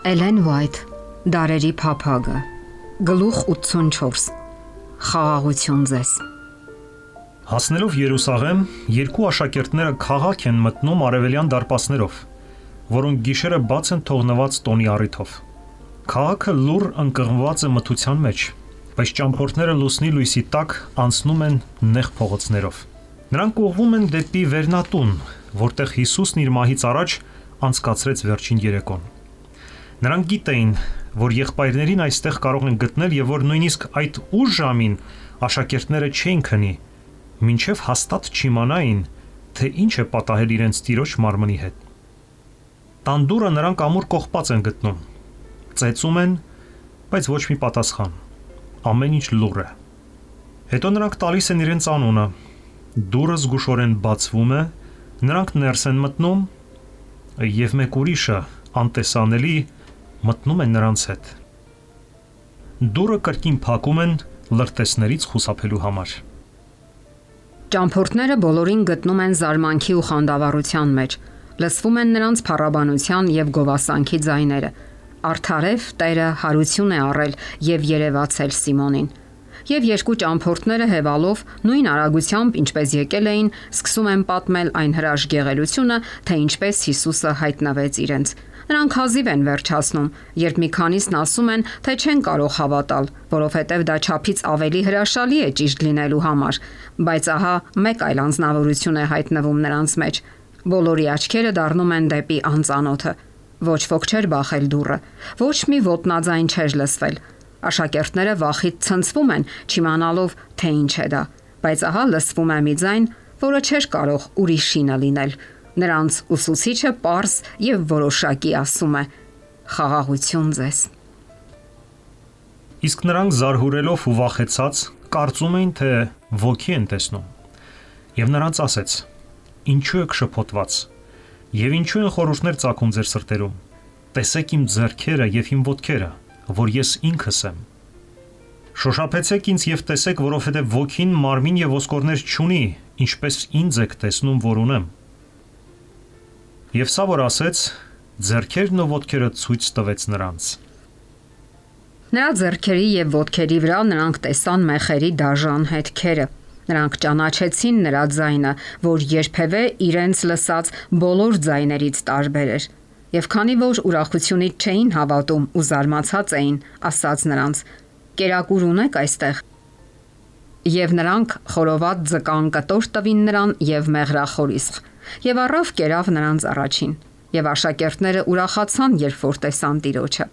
Էլեն Վայթ, Դարերի փափագը, գլուխ 84, խաղաղություն ձեզ։ Հասնելով Երուսաղեմ, երկու աշակերտները քաղաք են մտնում արևելյան դարպասներով, որոնք գիշերը բաց են թողնված տոնի առիթով։ Քաղաքը լուռ ընկղմված է մթության մեջ, բայց ճամփորդները լուսնի լույսի տակ անցնում են նեղ փողոցներով։ Նրանք ուղղվում են դեպի Վերնատուն, որտեղ Հիսուսն իր մահից առաջ անցկացրեց վերջին երեկոն։ Նրանք գիտեին, որ եղբայրներին այստեղ կարող են գտնել եւ որ նույնիսկ այդ ուշ ժամին աշակերտները չէին քնի, մինչև հաստատ չիմանային, թե ինչ է պատահել իրենց տիրոջ մարմնի հետ։ Տան դուռը նրանք ամուր կողպած են գտնում։ Ծեծում են, բայց ոչ մի պատասխան։ Ամեն ինչ լուռ է։ Հետո նրանք տալիս են իրենց անունը։ Դուռը զգուշորեն բացվում է, նրանք ներս են մտնում եւ մեկ ուրիշը անտեսանելի մտնում են նրանց հետ։ Դուռը կրկին փակում են լրտեսներից խուսափելու համար։ Ճամփորդները բոլորին գտնում են զարմանքի ու խանդավառության մեջ։ Լսվում են նրանց փառաբանության եւ գովասանքի ձայները։ Արդարև Տերը հարություն է առել եւ երևացել Սիմոնին։ Եվ երկու ճամփորդները հևալով նույն արագությամբ, ինչպես եկել էին, սկսում են պատմել այն հրաշք գեղեցությունը, թե ինչպես Հիսուսը հայտնվեց իրենց։ Նրանք հազիվ են վերջացնում, երբ մի քանիսն ասում են, թե չեն կարող հավատալ, որովհետև դա չափից ավելի հրաշալի է ճիշտ լինելու համար, բայց ահա մեկ այլ անձնավորություն է հայտնվում նրանց մեջ։ Բոլորի աչքերը դառնում են դեպի անծանոթը։ Ոչ ոք չէր բախել դուռը, ոչ մի ոտնաձայն չէր լսվել։ Աշակերտները վախից ցնցվում են, չիմանալով, թե ինչ է դա, բայց ահա լսվում է մի ձայն, որը չէր կարող ուրիշինը լինել։ Նրանց ուսուցիչը պարզ եւ որոշակի ասում է. խաղաղություն ձեզ։ Իսկ նրանք զարհուրելով ու վախեցած կարծում էին, թե ոգի են տեսնում։ Եվ նրանց ասեց. ինչու եք շփոթված, եւ ինչու են խորհուրդներ ծագում ձեր սրտերում։ Տեսեք իմ ձեռքերը եւ իմ ոտքերը, որ ես ինքս եմ։ Շոշափեցեք ինձ եւ տեսեք, որովհետեւ ոգին մարմին եւ ոսկորներ չունի, ինչպես ինձ եք տեսնում, որ ունեմ։ Եվ սա որ ասեց, ձեռքերն ու ոտքերը ցույց տվեց նրանց։ Նրա ձեռքերի եւ ոտքերի վրա նրանք տեսան մեխերի դաժան հետքերը։ Նրանք ճանաչեցին նրա ձայնը, որ երբևէ իրենց լսած բոլոր ձայներից տարբեր էր։ Եվ քանի որ ուրախությունից չէին հավատում ու զարմացած էին, ասաց նրանց. «Կերակուր ունեք այստեղ»։ Եվ նրանք խորոված ձկան կտոր տվին նրան եւ մեղրախորիսխ։ Եվ առավ կերավ նրանց առաջին։ Եվ աշակերտները ուրախացան, երբ որ տեսան Տիրոջը։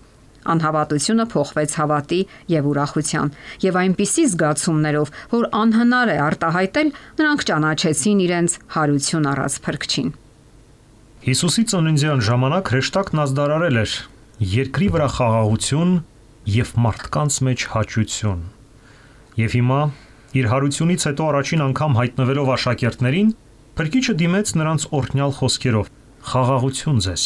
Անհավատությունը փոխվեց հավատի եւ ուրախության, եւ այնպիսի զգացումներով, որ անհնար է արտահայտել, նրանք ճանաչեցին իրենց հարություն առած Փրկչին։ Հիսուսի ծննդյան ժամանակ հրեշտակն ազդարարել էր երկրի վրա խաղաղություն եւ մարդկանց մեջ հաճություն։ Եվ հիմա, իր հարությունից հետո առաջին անգամ հայտնվելով աշակերտներին, Փրկիչը դիմեց նրանց օրհնյալ խոսքերով. խաղաղություն ձեզ։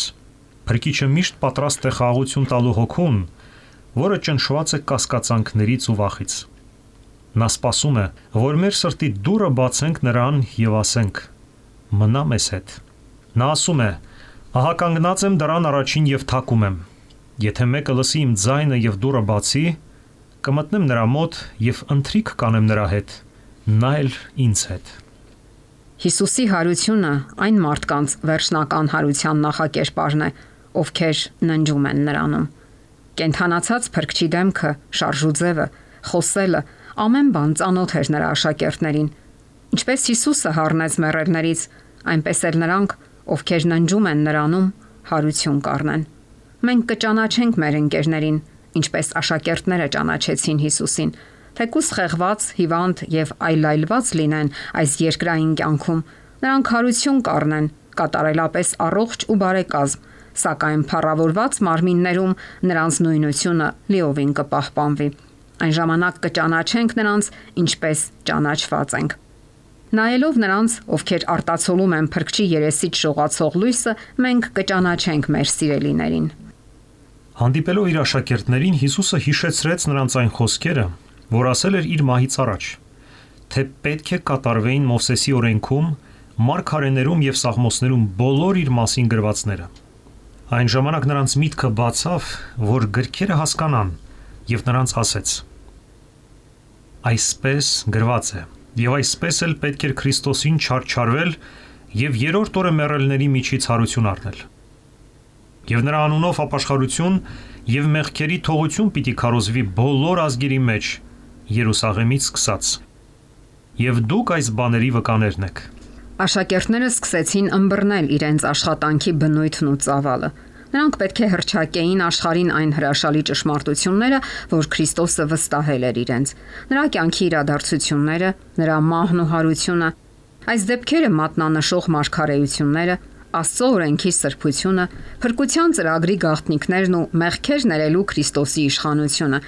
Փրկիչը միշտ պատրաստ է խաղաղություն տալու հոգուն, որը ճնշված է կասկածանքներից ու վախից։ Նա սպասում է, որ մեր սրտի դուռը բացենք նրան եւ ասենք. մնա մեզ հետ։ Նա ասում է. ահա կանգնած եմ դռան առաջին եւ թակում եմ։ Եթե մեկը լսի իմ ձայնը եւ դուռը բացի, կմտնեմ նրա մոտ եւ ընթրիք կանեմ նրա հետ, նա էլ ինձ հետ։ Հիսուսի հարությունը այն մարդկանց վերջնական հարության նախակերպարն է, ովքեր ննջում են նրանում։ Կենթանացած Փրկչի դեմքը, շարժուձևը, խոսելը, ամեն բան ծանոթ էր նրա աշակերտներին։ Ինչպես Հիսուսը հառնեց մեռելներից, այնպես էլ նրանք, ովքեր ննջում են նրանում, հարություն կառնեն։ Մենք կճանաչենք մեր ընկերներին, ինչպես աշակերտները ճանաչեցին Հիսուսին, թեկուզ խեղված, հիվանդ եւ այլայլված լինեն այս երկրային կյանքում, նրանք հարություն կառնեն, կատարելապես առողջ ու բարեկազմ, սակայն փառավորված մարմիններում նրանց նույնությունը լիովին կպահպանվի։ Այն ժամանակ կճանաչենք նրանց, ինչպես ճանաչված ենք։ Նայելով նրանց, ովքեր արտացոլում են Փրկչի երեսից շողացող լույսը, մենք կճանաչենք մեր սիրելիներին։ Հանդիպելով իր աշակերտներին, Հիսուսը հիշեցրեց նրանց այն խոսքերը, որ ասել էր իր մահից առաջ, թե պետք է կատարվեին Մովսեսի օրենքում, մարգարեներում եւ սաղմոսներում բոլոր իր մասին գրվածները։ Այն ժամանակ նրանց միտքը բացավ, որ գրքերը հասկանան, եւ նրանց ասեց. Այսպես գրված է, եւ այսպես էլ պետք էր Քրիստոսին չարչարվել եւ երրորդ օրը մեռելների միջից հարություն առնել։ Եվ նրա անունով ապաշխարություն եւ մեղքերի թողություն պիտի քարոզվի բոլոր ազգերի մեջ, Երուսաղեմից սկսած։ Եվ դուք այս բաների վկաներն եք։ Աշակերտները սկսեցին ըմբռնել իրենց աշխատանքի բնույթն ու ծավալը։ Նրանք պետք է հռչակեին աշխարհին այն հրաշալի ճշմարտությունները, որ Քրիստոսը վստահել էր իրենց։ Նրա կյանքի իրադարձությունները, նրա մահն ու հարությունը, այս դեպքերը մատնանշող մարգարեությունները, Աստծո օրենքի սրբությունը, փրկության ծրագրի գաղտնիքներն ու մեղքեր ներելու Քրիստոսի իշխանությունը։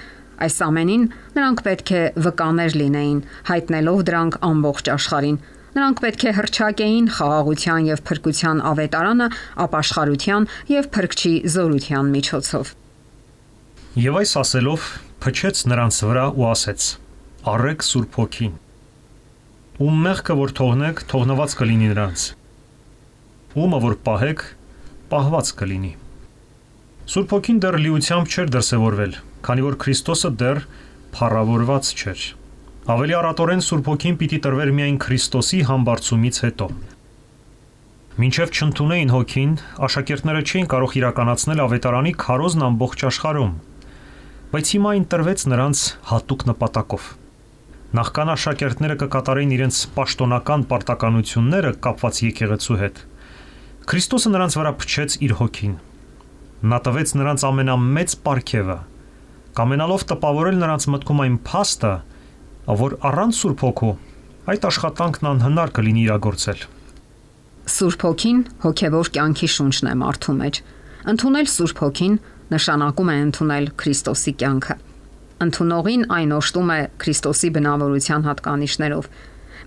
Այս ամենին նրանք պետք է վկաներ լինեին, հայտնելով դրանք ամբողջ աշխարհին։ Նրանք պետք է հռչակեին խաղաղության եւ փրկության ավետարանը ապաշխարության եւ փրկչի զորության միջոցով։ Եվ այս ասելով փչեց նրանց վրա ու ասեց. Առեք Սուրբ Հոգին։ Ում մեղքը որ թողնեք, թողնված կլինի նրանց։ Ումը որ պահեք, պահված կլինի։ Սուրբ Հոգին դեռ լիությամբ չէր դրսևորվել, քանի որ Քրիստոսը դեռ փառավորված չէր։ Ավելի առատորեն Սուրբ Հոգին պիտի տրվեր միայն Քրիստոսի համբարձումից հետո։ Մինչև չընդունեին Հոգին, աշակերտները չէին կարող իրականացնել ավետարանի քարոզն ամբողջ աշխարհում, բայց հիմա այն տրվեց նրանց հատուկ նպատակով։ Նախքան աշակերտները կկատարեին իրենց պաշտոնական պարտականությունները կապված եկեղեցու հետ, Քրիստոսը նրանց վրա փչեց իր Հոգին։ Նա տվեց նրանց ամենամեծ պարգևը, կամենալով տպավորել նրանց մտքում այն փաստը, որ առանց Սուրբ Հոգու այդ աշխատանքն անհնար կլինի իրագործել։ Սուրբ Հոգին հոգևոր կյանքի շունչն է մարդու մեջ։ Ընդունել Սուրբ Հոգին նշանակում է ընդունել Քրիստոսի կյանքը։ Ընդունողին այն օժտում է Քրիստոսի բնավորության հատկանիշներով։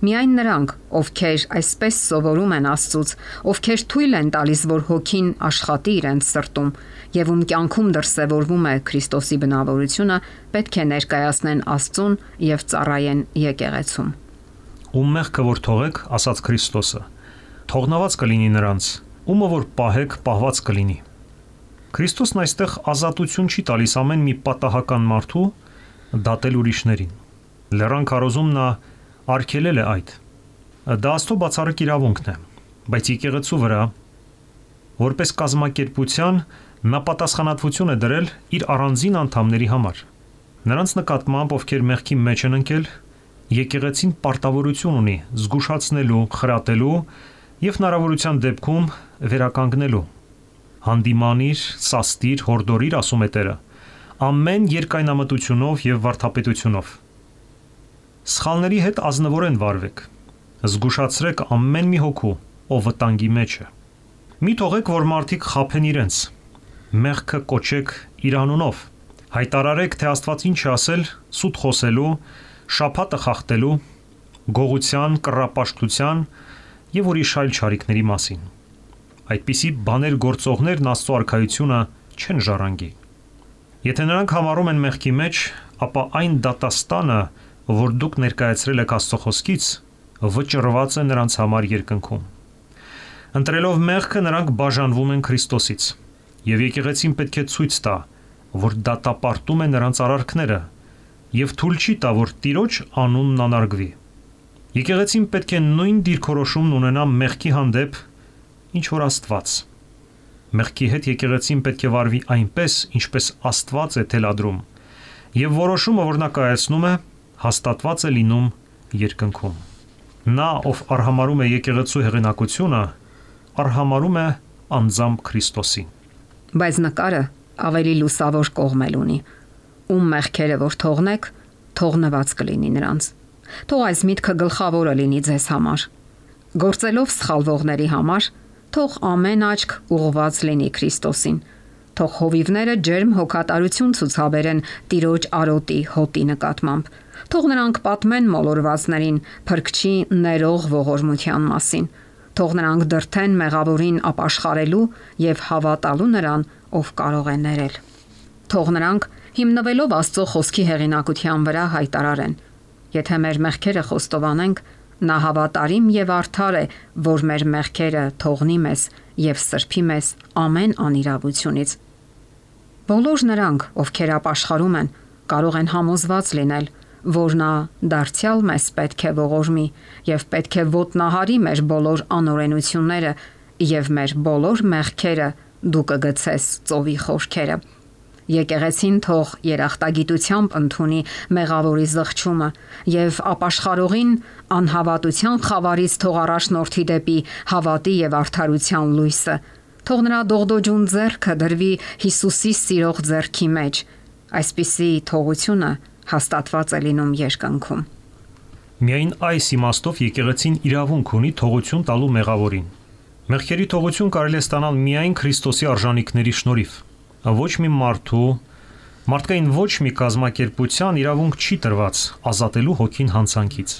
Միայն նրանք, ովքեր այսպես սովորում են Աստծուց, ովքեր թույլ են տալիս, որ Հոգին աշխատի իրենց սրտում, եւ ում կյանքում դրսևորվում է Քրիստոսի բնավորությունը, պետք է ներկայացնեն Աստծուն եւ ծառայեն եկեղեցում։ Ում մեղքը որ թողեք, ասաց Քրիստոսը, թողնված կլինի նրանց, ումը որ պահեք, պահված կլինի։ Քրիստոսն այստեղ ազատություն չի տալիս ամեն մի պատահական մարդու դատել ուրիշներին։ Լեռան քարոզում նա արգելել է այդ։ Դա Աստծո բացառիկ իրավունքն է, բայց եկեղեցու վրա, որպես կազմակերպության, նա պատասխանատվություն է դրել իր առանձին անդամների համար։ Նրանց նկատմամբ, ովքեր մեղքի մեջ են ընկել, եկեղեցին պարտավորություն ունի զգուշացնելու, խրատելու եւ հնարավորության դեպքում վերականգնելու։ Հանդիմանիր, սաստիր, հորդորիր, ասում է Տերը, ամեն երկայնամտությունով եւ վարդապետությունով։ Սխալների հետ ազնվորեն վարվեք։ Զգուշացրեք ամեն մի հոգու, ով վտանգի մեջ է։ Մի թողեք, որ մարդիկ խաբեն իրենց։ Մեղքը կոչեք իր անունով։ Հայտարարեք, թե Աստված ինչ է ասել սուտ խոսելու, շաբաթը խախտելու, գողության, կռապաշտության եւ ուրիշ այլ չարիքների մասին։ Այդպիսի բաներ գործողներն Աստծո արքայությունը չեն ժառանգի։ Եթե նրանք համարում են մեղքի մեջ, ապա այն դատաստանը, որ դուք ներկայացրել եք Աստծո խոսքից, վճռված է նրանց համար երկնքում։ Ընտրելով մեղքը նրանք բաժանվում են Քրիստոսից, եւ եկեղեցին պետք է ցույց տա, որ դատապարտում է նրանց արարքները եւ թույլ չի տա, որ Տիրոջ անունն անարգվի։ Եկեղեցին պետք է նույն դիրքորոշումն ունենա մեղքի հանդեպ, ինչ որ Աստված։ Մեղքի հետ եկեղեցին պետք է վարվի այնպես, ինչպես Աստված է թելադրում, եւ որոշումը, որ նա կայացնում է, հաստատված է լինում երկնքում։ Նա, ով արհամարում է եկեղեցու հեղինակությունը, արհամարում է անձամբ Քրիստոսին։ Բայց նկարը ավելի լուսավոր կողմ ունի։ Ում մեղքերը որ թողնեք, թողնված կլինի նրանց։ Թող այս միտքը գլխավորը լինի ձեզ համար։ Գործելով սխալվողների համար, թող ամեն աչք ուղղված լինի Քրիստոսին։ Թող հովիվները ջերմ հոգատարություն ցուցաբերեն Տիրոջ արոտի հոտի նկատմամբ։ Թող նրանք պատմեն մոլորվածներին փրկչի ներող ողորմության մասին։ Թող նրանք դրթեն մեղավորին ապաշխարելու եւ հավատալու նրան, ով կարող է ներել։ Թող նրանք հիմնվելով Աստծո խոսքի հեղինակության վրա հայտարարեն. Եթե մեր մեղքերը խոստովանենք, Նա հավատարիմ եւ արդար է, որ մեր մեղքերը թողնի մեզ եւ սրբի մեզ ամեն անիրավությունից։ Բոլոր նրանք, ովքեր ապաշխարում են, կարող են համոզված լինել, որ նա դարձյալ մեզ պետք է ողորմի եւ պետք է ոտնահարի մեր բոլոր անօրենությունները եւ մեր բոլոր մեղքերը դու կգցես ծովի խորքերը։ Եկեղեցին թող երախտագիտությամբ ընդունի մեղավորի զղջումը եւ ապաշխարողին անհավատության խավարից թող առաջնորդի դեպի հավատի եւ արդարության լույսը։ Թող նրա դողդոջուն ձեռքը դրվի Հիսուսի սիրող ձեռքի մեջ։ Այսպիսի թողությունը հաստատված է լինում երկնքում։ Միայն այս իմաստով եկեղեցին իրավունք ունի թողություն տալու մեղավորին։ Մեղքերի թողություն կարելի է ստանալ միայն Քրիստոսի արժանիքների շնորհիվ։ Ոչ մի մարդկային ոչ մի կազմակերպության իրավունք չի տրված ազատելու հոգին հանցանքից։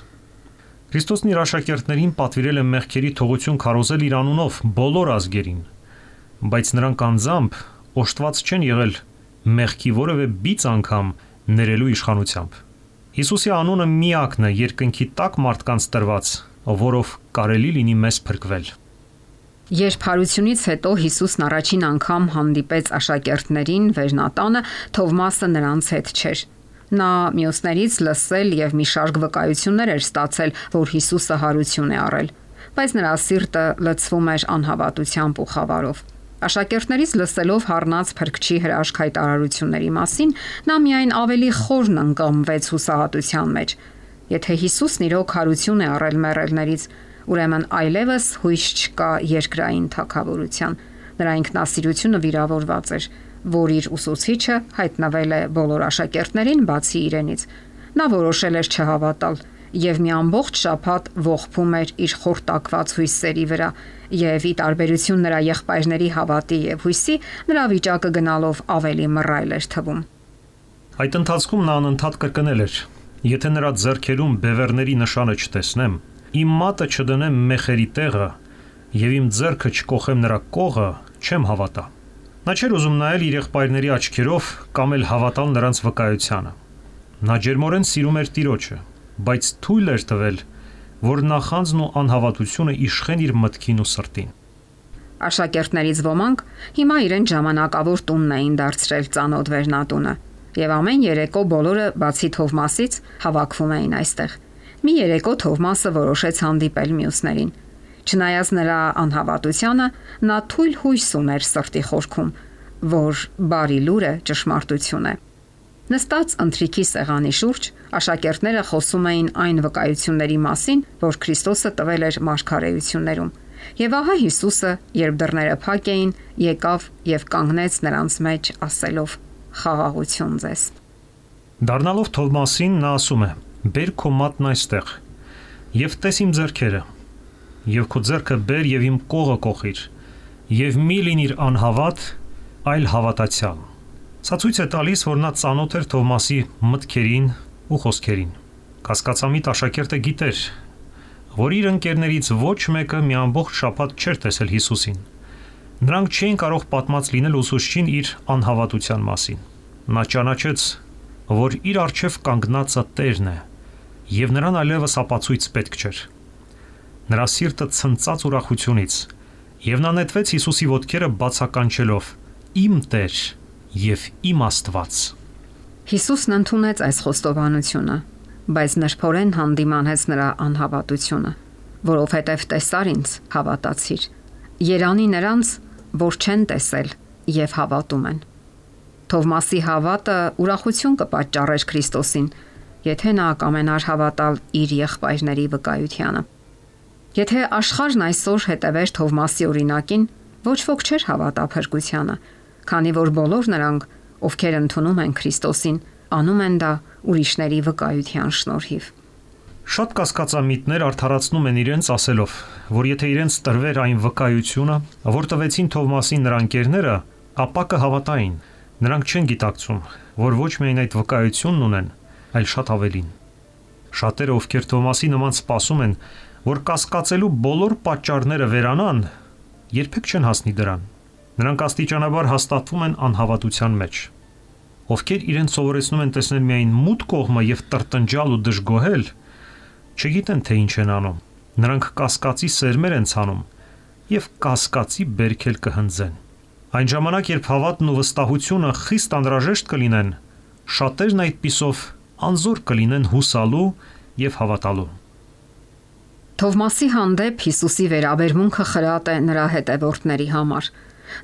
Քրիստոսն իր աշակերտներին պատվիրել է մեղքերի թողություն քարոզել իր անունով բոլոր ազգերին, բայց նրանք անձամբ օժտված չեն եղել մեղքի որևէ բիծ անգամ ներելու իշխանությամբ։ Հիսուսի անունը միակն է երկնքի տակ մարդկանց տրված, որով կարելի լինի մեզ փրկվել։ Երբ հարությունից հետո Հիսուսն առաջին անգամ հանդիպեց աշակերտներին վերնատանը, Թովմասը նրանց հետ չէր։ Նա մյուսներից լսել եւ մի շարք վկայություններ էր ստացել, որ Հիսուսը հարություն է առել, բայց նրա սիրտը լցվում էր անհավատությամբ ու խավարով։ Աշակերտներից լսելով հառնած Փրկչի հրաշք հայտարարությունների մասին, նա միայն ավելի խորն ընկղմվեց հուսահատության մեջ։ Եթե Հիսուսն իրոք հարություն է առել մեռելներից, ուրեմն այլևս հույս չկա երկրային թագավորության։ Նրա ինքնասիրությունը վիրավորված էր, որ իր ուսուցիչը հայտնվել է բոլոր աշակերտներին բացի իրենից։ Նա որոշել էր չհավատալ եւ մի ամբողջ շաբաթ ողբում էր իր խորտակված հույսերի վրա, եւ ի տարբերություն նրա եղբայրների հավատի եւ հույսի, նրա վիճակը գնալով ավելի մռայլ էր թվում։ Այդ ընթացքում նա անընդհատ կրկնել էր. «Եթե նրա ձեռքերում բևեռների նշանը չտեսնեմ, իմ մատը չդնեմ մեխերի տեղը եւ իմ ձեռքը չկոխեմ նրա կողը, չեմ հավատա»։ Նա չէր ուզում նայել իր եղբայրների աչքերով կամ էլ հավատալ նրանց վկայությանը։ Նա ջերմորեն սիրում էր Տիրոջը, բայց թույլ էր տվել, որ նախանձն ու անհավատությունը իշխեն իր մտքին ու սրտին։ Աշակերտներից ոմանք հիմա իրեն ժամանակավոր տունն էին դարձրել ծանոթ վերնատունը, եւ ամեն երեկո բոլորը բացի Թովմասից հավաքվում էին այստեղ։ Մի երեկո Թովմասը որոշեց հանդիպել մյուսներին։ Չնայած նրա անհավատությանը, նա թույլ հույս ուներ սրտի խորքում, որ բարի լուրը ճշմարտություն է։ Նստած ընթրիքի սեղանի շուրջ աշակերտները խոսում էին այն վկայությունների մասին, որ Քրիստոսը տվել էր մարգարեություններում։ Եվ ահա Հիսուսը, երբ դռները փակ էին, եկավ եւ կանգնեց նրանց մեջ, ասելով. «Խաղաղություն ձեզ»։ Դառնալով Թովմասին նա ասում է. «Բեր քո մատն այստեղ եւ տես իմ ձեռքերը, եւ քո ձեռքը բեր եւ իմ կողը կոխիր, եւ մի լինիր անհավատ, այլ հավատացյալ»։ Սա ցույց է տալիս, որ նա ծանոթ էր Թովմասի մտքերին ու խոսքերին։ Կասկածամիտ աշակերտը գիտեր, որ իր ընկերներից ոչ մեկը մի ամբողջ շաբաթ չէր տեսել Հիսուսին։ Նրանք չէին կարող պատմած լինել ուսուցչին իր անհավատության մասին։ Նա ճանաչեց, որ իր առջև կանգնածը Տերն է, եւ նրան այլևս ապացույց պետք չէր։ Նրա սիրտը ցնծաց ուրախությունից, եւ նա նետվեց Հիսուսի ոտքերը բացականչելով. «Իմ Տեր եւ իմ Աստված»։ Հիսուսն ընդունեց այս խոստովանությունը, բայց նրբորեն հանդիմանեց նրա անհավատությունը, որովհետև տեսար ինձ, հավատացիր։ Երանի նրանց, որ չեն տեսել եւ հավատում են։ Թովմասի հավատը ուրախություն կպատճառեր Քրիստոսին, եթե նա կամենար հավատալ իր եղբայրների վկայությանը։ Եթե աշխարհն այսօր հետևեր Թովմասի օրինակին, ոչ ոք չէր հավատա փրկությանը, քանի որ բոլոր նրանք, ովքեր ընդունում են Քրիստոսին, անում են դա ուրիշների վկայության շնորհիվ։ Շատ կասկածամիտներ արդարացնում են իրենց ասելով, որ եթե իրենց տրվեր այն վկայությունը, որ տվեցին Թովմասին նրա ընկերները, ապա կհավատային։ Նրանք չեն գիտակցում, որ ոչ միայն այդ վկայությունն ունեն, այլ շատ ավելին։ Շատերը, ովքեր Թովմասի նման սպասում են, որ կասկածելու բոլոր պատճառները վերանան, երբեք չեն հասնի դրան։ Նրանք աստիճանաբար հաստատվում են անհավատության մեջ։ Ովքեր իրենց սովորեցնում են տեսնել միայն մութ կողմը եւ տրտնջալ ու դժգոհել, Չգիտեն թե ինչ են անում։ Նրանք կասկածի սերմեր են ցանում եւ կասկածի բերքել կհնձեն։ Այն ժամանակ, երբ հավատն ու վստահությունը խիստ անհրաժեշտ կլինեն, շատերն այդպիսով անզոր կլինեն հուսալու եւ հավատալու։ Թովմասի հանդեպ Հիսուսի վերաբերմունքը խրատ է նրա հետևորդների համար։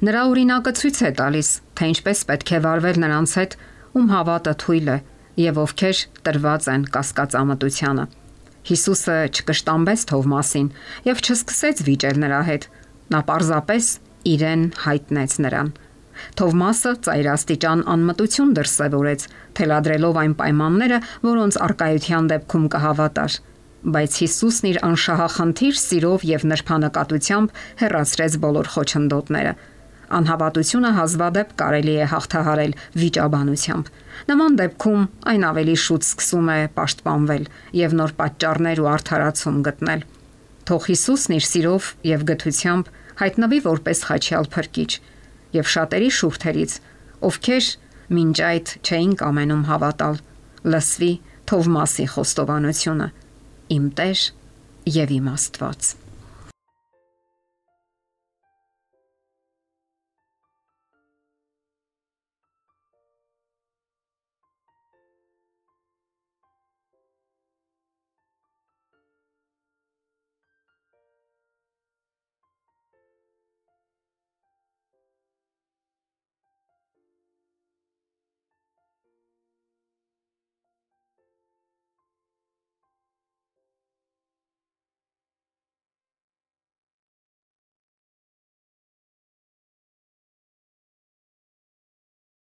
Նրա օրինակը ցույց է տալիս, թե ինչպես պետք է վարվել նրանց հետ, ում հավատը թույլ է եւ ովքեր տրված են կասկածամտությանը։ Հիսուսը չկշտամբեց Թովմասին եւ չսկսեց վիճել նրա հետ։ Նա պարզապես իրեն հայտնեց նրան։ Թովմասը ծայրաստիճան անմտություն դրսևորեց, թելադրելով այն պայմանները, որոնց արկայության դեպքում կհավատար։ Բայց Հիսուսն իր անշահախնդիր սիրով եւ նրբանկատությամբ հեռացրեց բոլոր խոչընդոտները։ Անհավատությունը հազվադեպ կարելի է հաղթահարել վիճաբանությամբ։ Նման դեպքում այն ավելի շուտ սկսում է պաշտպանվել եւ նոր պատճառներ ու արդարացում գտնել։ Թող Հիսուսն իր սիրով եւ գթությամբ հայտնվի որպես խաչյալ փրկիչ եւ շատերի շուրթերից, ովքեր մինչ այդ չէին կամենում հավատալ, լսվի Թովմասի խոստովանությունը. Իմ Տեր եւ իմ Աստված։